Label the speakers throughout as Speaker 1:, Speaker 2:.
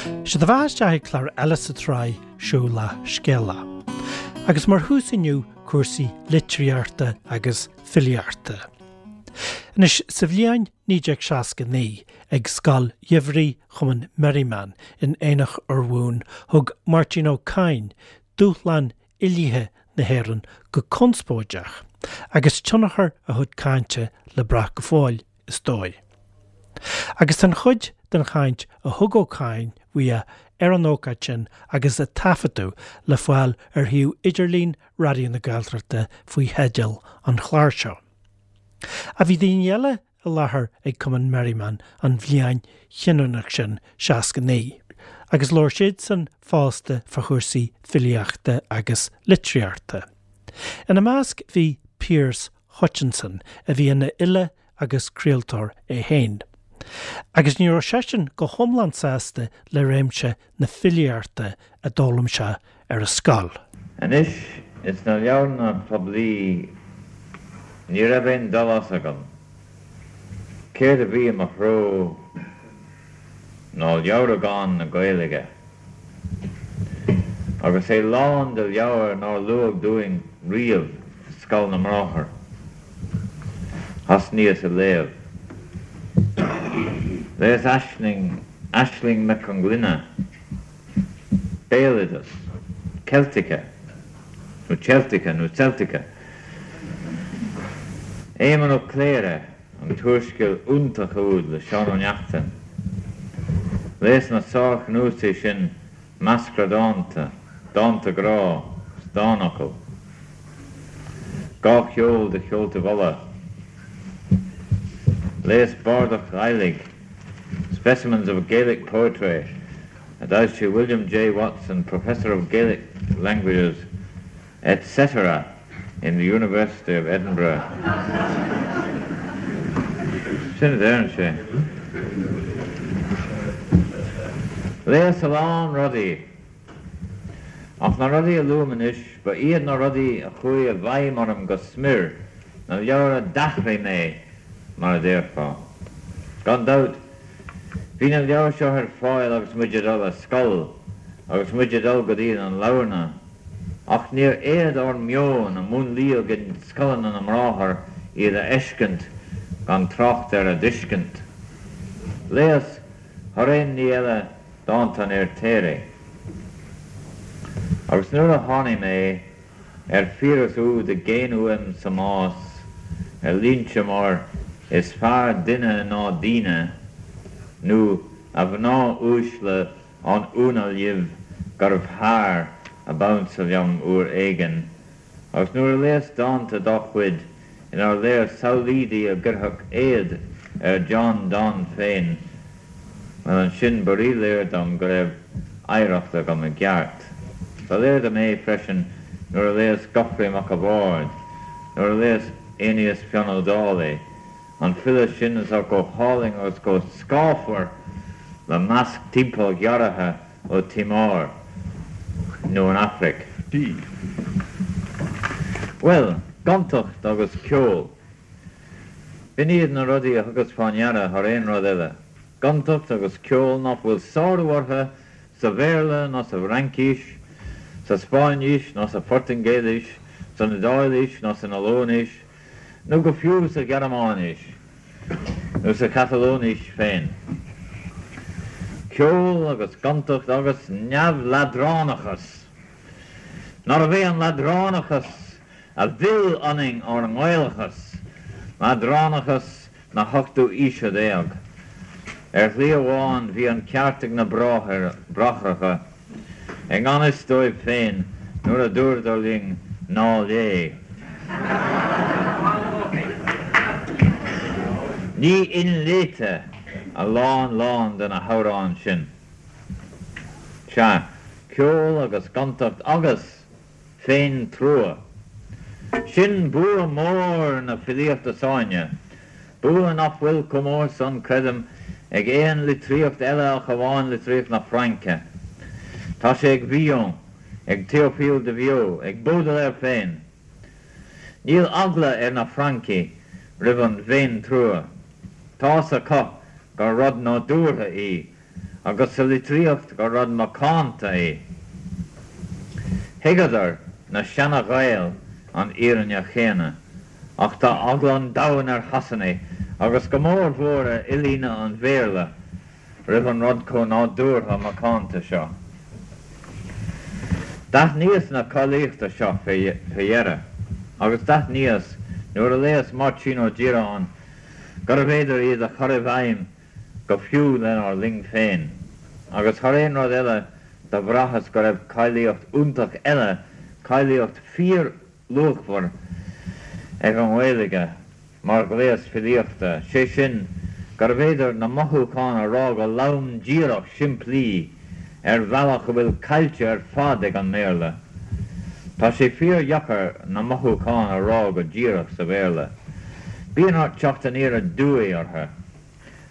Speaker 1: Sé do bheatha isteach ag clár eile sa tsraith Seo Leath Scéala. Agus mar thús inniu cúrsaí litríochta agus filíochta. Anois, sa bhliain 1969, ag Scoil Gheimhridh Chumann Merriman in Aonach Urmhumhan, thug Máirtín Ó Cadhain dúshlán fhilithe na hÉireann go conspóideach, agus tionchar a chuid cainte le brath go fóill, is dóigh. Agus tá an chuid den chaint a thug Ó Cadhain uaidh ar an ócáid sin agus a taifeadadh le fáil ar shuíomh idirlín Raidió na Gaeltachta faoi theideal an chláir seo. Ach bhí daoine eile i láthair ag Cumann Merriman an bhliain chinniúnach sin, 69, agus labhair siadsan fosta fá chúrsaí filíochta agus litríochta. Ina measc bhí Pearse Hutchinson, a bhí ina fhile agus craoltóir é féin. Agus ní raibh seisean go hiomlán sásta le réimse na filíochta a d'fhoghlaim sé ar an scoil.
Speaker 2: Anois, ins na leabharlanna poiblí ní raibh aon dul as agam. Céard a bhí i mo threo ná leabhragán na Gaeilge. Agus é lán de leabhair nár luadh dúinn riamh i Scoil na mBráthar. Thosnaíos ag léamh. Léas Aisling, Aisling Mhic Conglinne, Béaloideas, Celtica, nó Celtica nó Celtica, Éamonn Ó Cléire, an t-úrscéal iontach úd le Seán Ó Neachtain. Léas na sárchnuasaigh sin Meascra Dánta, Dánta Grá 's Dánfhocail. 'Gá Cheol de Cheoltaibh Uladh. Léas Bardacht Ghàidhlig, Specimens of Gaelic Poetry, a d'fhoilsigh William J. Watson, Professor of Gaelic Languages, etc. in the University of Edinburgh. Sin a deireann sé. Léas a lán rudaí. Ach na rudaí a luaim anois, ba iad na rudaí a chuaigh i bhfeidhm orm go smior, na leabhair a d'athraigh mé, mar a déarfá. Gan dabht, bhí na leabhair seo ar fáil agus muid ag dul ar scoil, agus muid ag dul go dtí na leabharlanna. Ach níor fhéad ár meon, a múnlaíodh i scoileanna na mBráthar, iad a fheiscint, gan trácht ar a dtuiscint. Léas, thar aon ní eile, dánta an Fheirtéaraigh. Agus nuair a tháinig mé ar Phiaras úd i gcéin uaim sa mbás, ar línte mar 'Is fearr duine ná daoine' nó 'A mhná uaisle An ionadh libh gurbh fhear ab ansa liom uair éigin, agus nuair a léas dánta dá chuid inar léir samhlaoidí a gcuirfeadh éad ar John Donne féin, bhuel ansin ba ríléir dom go raibh oidhreacht agam i gceart. Ba léir dom é freisin nuair a léas Gofraidh Mac a' Bhaird, nuair a léas Aeneas Fionn Ó Dálaigh, An file sin atá chomh hálainn agus chomh scáfar le masc timpeallghearrtha ó Timor nó an Afraic.
Speaker 3: D.
Speaker 2: Bhuel, gontacht agus ceol. B'in iad na rudaí a thugas fá ndeara thar aon rud eile. Gontacht agus ceol nach bhfuil sárú orthu sa Bhéarla ná sa bhFraincís, sa Spáinnis ná sa Phortaingéilis, san Iodáilis ná san Ollainis, nó go fiú sa Ghearmáinis nó sa Chatalóinis féin. Ceol agus gontacht agus neamhleadránachas! Nárbh é an leadránachas a mhill ionainn ár nGaelachas, leadránachas na hochtú aoise déag. Ar shlí amháin bhí an ceart ag na Bráithreacha, i ngan fhios dóibh féin, nuair a dúradar linn ná léigh. Ní inléite a lán lán de na hamhráin sin. Sea, ceol agus gontacht agus. féin-trua. Sin bua mór na filíochta s'againne, bua nach bhfuil chomh mór san, creidim, ag aon litríocht eile ach amháin litríocht na Fraince. Tá sé ag Villon, ag Théophile de Viau, ag Baudelaire féin. Níl eagla ar na Francaigh roimh an bhféin-trua. Tá's acu gur rud nádúrtha í. agus sa litríocht gur rud macánta é. Thuigeadar, na seana-Ghaeil, an fhírinne chéanna, ach tá eagla an domhain ar Shasanaigh, agus go mór mhór ar fhilí an Bhéarla, roimh an rud chomh nádúrtha macánta seo. D'aithníos na cáilíochta seo fé dheireadh, agus d'aithníos, nuair a léas Máirtín Ó Direáin, gurbh fhéidir iad a chur i bhfeidhm go fiú lenár linn féin. Agus thar aon rud eile do bhraitheas go raibh cáilíocht iontach eile, cáilíocht fíor-luachmhar ag an nGaeilge mar ghléas filíochta, sé sin, gurbh fhéidir na mothúcháin a rá go lom díreach simplí ar bhealach a bhfuil caillte ar fad ag an mBéarla. Tá sé fíor-dheacair na mothúcháin a rá go díreach sa Bhéarla. Bíonn ort teacht aniar aduaidh orthu.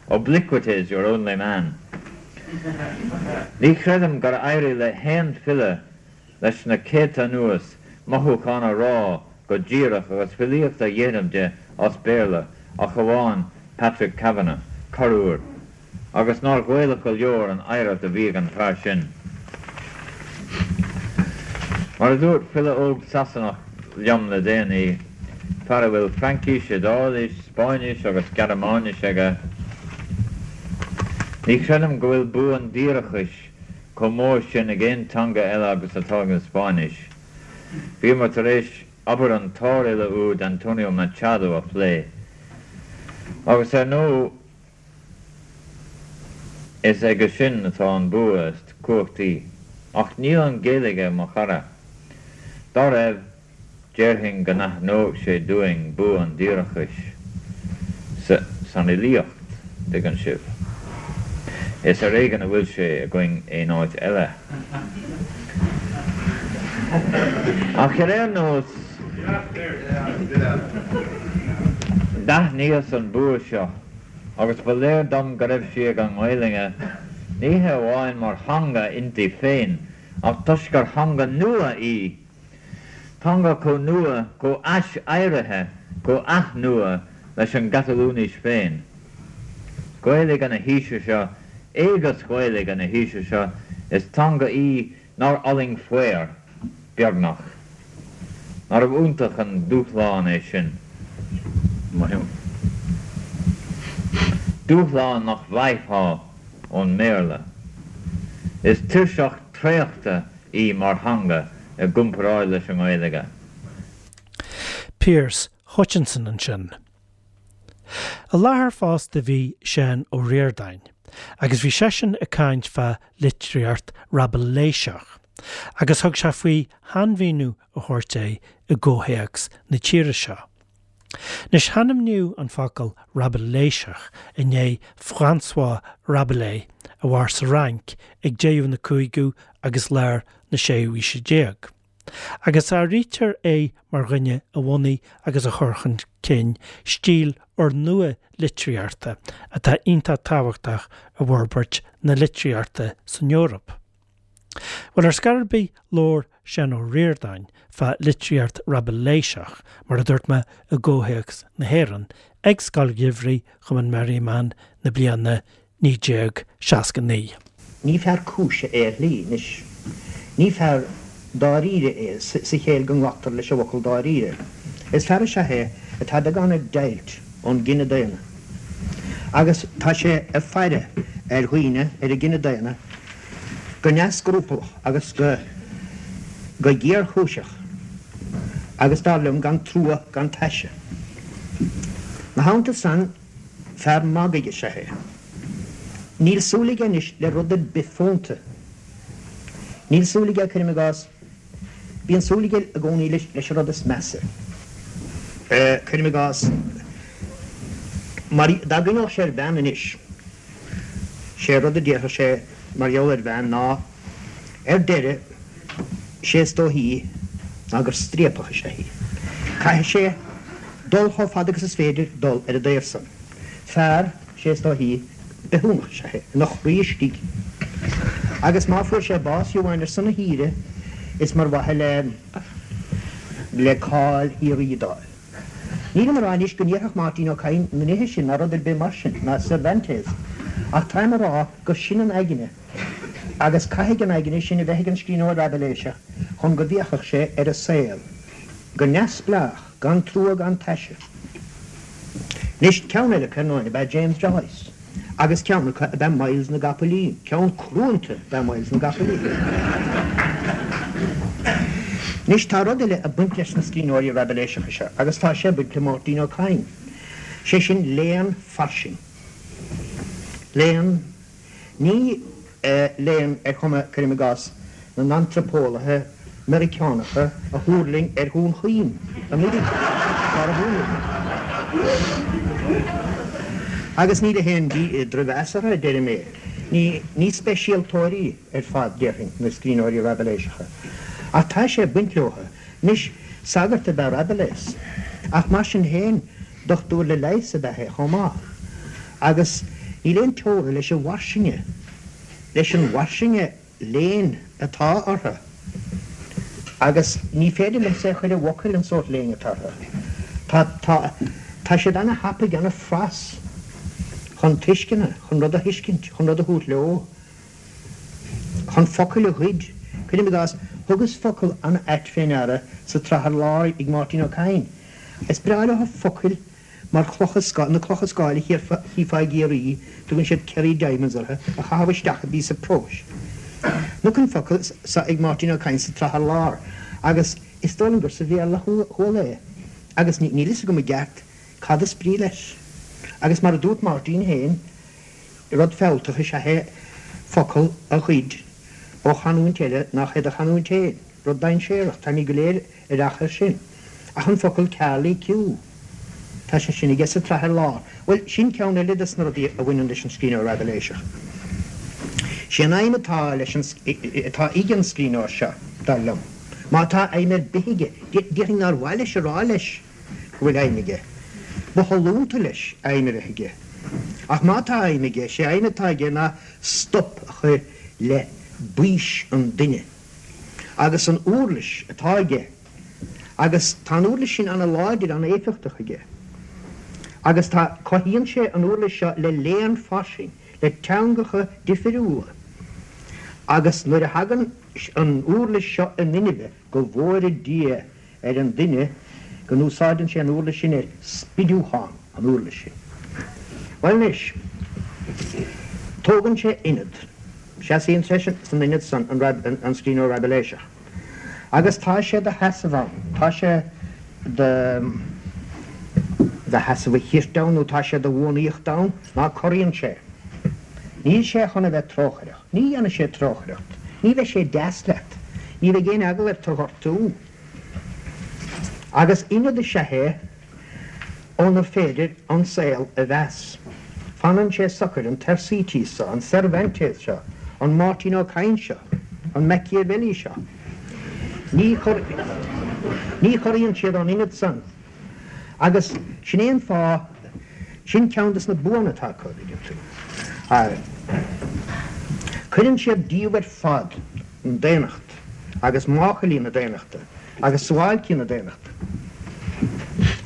Speaker 2: Obliquity is your only man. Ní chreidim gur éirigh le haon file leis na céadta anuas mothúcháin a rá go díreach agus filíocht a dhéanamh de as Béarla ach amháin Patrick Kavanagh, corruair, agus nár Ghaelach go leor an oidhreacht a bhí ag an bhfear sin. Mar a dúirt file óg Sasanach liom le déanaí, fear a bhfuil Fraincis, Iodáilis, Spáinnis agus Gearmáinis aige, Ní chreidim go bhfuil bua an díreachais chomh mór sin ag aon teanga eile agus atá ag an Spáinnis. Bhíomar tar éis obair an tsárfhile úd Antonio Machado a phlé, agus ar ndóigh is aige sin atá an bua is cumhachtaí. Ach níl an Ghaeilge, mo chara. Dá raibh, Déarfainn go n-aithneodh sé dúinn bua an díreachais san fhilíocht, dtuigeann sibh. Is ar éigean a bhfuil sé againn aon áit eile. Ach ar aon nós, d'aithníos an bua seo agus ba léir dom go raibh sí ag an nGaelainne, ní hé amháin mar theanga inti féin ach toisc gur theanga nua í Teanga chomh nua, chomh hais-éirithe, chomh hathnua leis an gCatalúinis féin. Gaeilge na haoise seo, éigeas Ghaeilge na haoise seo, is teanga í nár fhulaing faor, beagnach. Nárbh iontach an dúshlán é sin? Dúshlán nach bhfaighfeá ón mBéarla. Is tuirseach traochta í mar theanga i gcomparáid leis an nGaeilge.
Speaker 1: Pearse Hutchinson ansin. I láthair fosta bhí Seán Ó Ríordáin agus bhí seisean ag caint fá litríocht Raibiléiseach agus thug sé faoi shainmhíniú a thabhairt air i gcomhthéacs na tíre seo. Anois hainmníodh an focal Raibiléiseach i ndiaidh François Rabelais a mhair sa Fhrainc ag deireadh na cúigiú agus lár na séú haoise déag, agus áirítear é mar dhuine a bhunaigh agus a chuir chun cinn stíl úrnua litríochta atá iontach tábhachtach i bhforbairt na litríochta san Eoraip. Bhuel, ar scor ar bith, labhair Seán Ó Ríordáin fá litríocht Raibiléiseach, mar a dúirt mé, i gcomhthéacs na hÉireann, ag Scoil Gheimhridh Chumann Merriman na bliana 1969.
Speaker 3: Ní fear cúise é ar shlí, anois. Ní fear dáiríre é, sa chéill go nglactar leis an bhfocal dáiríre. Is fear is ea é atá beagán ag deighilt ón gcine daonna. Agus tá sé ag faire ar dhaoine, ar an gcine daonna, go neamhscrupallach agus go go géarchúiseach agus, dar liom, gan trua gan taise. 'Na theannta san, fear magaidh is ea é. Níl súil aige anois le rud ar bith fónta. Níl súil aige, cuirim i gcás, bíonn súil aige i gcónaí leis an rud is measa, cuirim i gcás, mar dá gcuimhneodh sé ar bhean anois, Sé rud a déarfadh sé mar gheall ar bhean ná, ar deireadh, sé is dóichí ná gur striapach is ea í. Caithfidh sé dul chomh fada agus is féidir dul ar an dtaobh san. Fear, sé is dóichí, bithiúnach is ea é, ina chroí istigh. Agus má fuair sé bás fiú amháin ar son a thíre, is mar mhaithe le le cáil shíoraí d'fháil. Nílim a rá anois go ndéarfadh Máirtín Ó Cadhain na nithe sin ná rud ar bith mar sin, ná Cervantes. Ach táim a rá gur sin an aigne, agus caithfidh an aigne sin a bheith ag an scríbhneoir Raibiléiseach chun go bhféachfadh sé ar an saol go neamhspleách, gan trua gan taise. Anois, ceann eile acu ar ndóin ab ea James Joyce, agus ceann acu ab ea Myles na gCopaleen, ceann cruanta ab ea Myles na gCopaleen. Anois, tá rud eile ag baint leis na scríbhneoirí Raibiléiseacha seo, agus tá sé ag baint le Máirtín Ó Cadhain, sé sin léann fairsing. Léann. Ní léann ar chuma, cuirim i gcás, na n-antraipeolaithe Meiriceánacha a thuirling ar Dhún Chaoin anuraidh, atá ar bun aige. Agus ní le haon drochmheas orthu a deirim é. Ní speisialtóirí ar fad, déarfainn, na scríbhneoirí Raibiléiseacha. Ach tá sé ag baint leo. Anois, sagart ab ea Rabelais, ach mar sin féin, dochtúir le leigheas ab ea é chomh maith. Agus níl aon teora leis an bhfairsinge, leis an bhfairsinge léinn atá orthu. Agus ní féidir liomsa é a chur i bhfocail, an sórt léinn atá orthu. Tá, tá, tá siad ana-thapaidh, ana-phras chun tuisceana, chun rud a thuiscint, chun rud a thabhairt leo. chun focail a ghoid. Cuirim i gcás, thugas focal an-ait fé ndeara sa tsraith Ar Lár ag Máirtín Ó Cadhain. Is breá leo focail mar chlocha scáil, na clocha scáil a chífeá i gCiarraí, tugann siad Kerry Diamonds orthu, a chaitheamh isteach i bpíosa próis. Chonac an focal so ag Máirtín Ó Cadhain sa tsraith Ar Lár agus is dóigh liom gur sa Bhéarla a chuala é agus níl fhios agam i gceart cad is brí leis. Agus mar a dúirt Máirtín féin, Rud fealltach is ea é focal a ghoid ó chanúint eile nach é do chanúint féin. Rud dainséarach, táimid go léir aireach air sin. Ach an focal carley-queue, tá sé sin aige sa tsraith Ar Lár. Bhuel, sin ceann eile des na rudaí a bhaineann leis an scríbhneoir Raibiléiseach. Sé an aidhm atá leis an, atá ag an scríbhneoir seo, dar liom, má tá aidhm ar bith aige, déarfainn nár mhaith leis a rá leis, go bhfuil aidhm aige. Ba shollúnta leis aidhm a bheith aige. Ach má tá aidhm aige, sé aidhm atá aige ná stop a chur le baois an duine. Agus an uirlis atá aige, agus tá an uirlis sin ana-láidir, ana-éifeachtach aige. Agus tá, cothaíonn sé an uirlis seo le léann fairsing, le teangacha difiriúla. Agus nuair a thagann an uirlis seo in inmhe, go bhfóire Dia ar an duine go n-úsáideann sé an uirlis sin ar spidiúchán an uirlis sin. Bhuel anois, tógann sé ionad, seasaíonn sé san ionad san, an scríbhneoir Raibiléiseach, agus tá sé do sheasamh ann, tá sé do do sheasamh a chirt ann nó tá sé do bhuanaíocht ann, ná corraíonn sé. Níl sé chun a bheith trócaireach. Ní dhéanfaidh sé trócaireacht. Ní bheidh sé deas leat. Ní bheidh aon eagal air tu ghortú. Agus ionad is ea é ónar féidir an saol a mheas. Fanann sé socair, an Thersites seo, an Cervantes seo, an Máirtín Ó Cadhain seo, an Machiavelli seo. Ní ní chorraíonn siad ón ionad san. Agus sin é an fáth, sin ceann de na buanna atá acu, an dtuigeann tú. Cuireann siad díobh ar fad an daonnacht agus máchailí na daonnachta agus suáilcí na daonnachta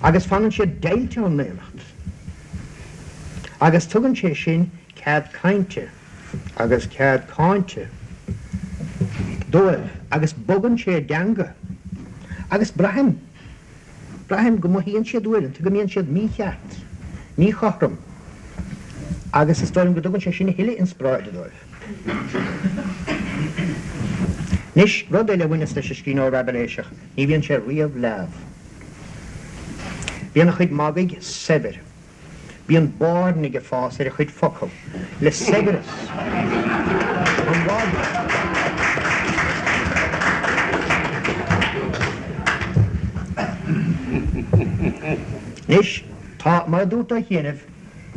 Speaker 3: agus fanann siad deighilte ón ndaonnacht agus tugann sé sin cead cainte agus cead cáinte dóibh agus bogann sé a dteanga agus braithim Braithim go mothaíonn siad uaireanta go mbíonn siad mícheart, míchothrom agus is dóigh liom go dtugann sé sin a thuilleadh inspioráide dóibh. Anois, rud eile a bhaineas leis an scríbhneoir Raibiléiseach, ní bhíonn sé riamh leamh. Bíonn a chuid magaidh saibhir. Bíonn bairnigh ag fás ar a chuid focal le saibhreas an mhagaidh. Anois, tá, mar a dúrt ó chianaibh,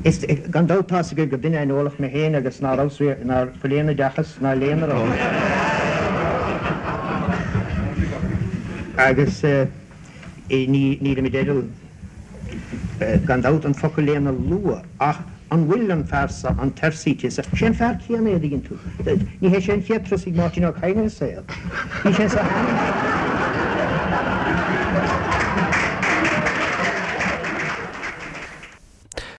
Speaker 3: is, gan dabht tá's agaibh gur duine aineolach mé féin agus ná rabhas riamh, ná fuil aon oideachas ná léann orm. Agus ní, nílim i dteideal. gan dabht, an focal léann a lua, ach an bhfuil an fear seo, an Thersites seo, sé an fear céanna é, an dtuigeann tú. Ní hé sé an chéad turas ag Máirtín Ó Cadhain ar an saol. Bhí sé anso cheana.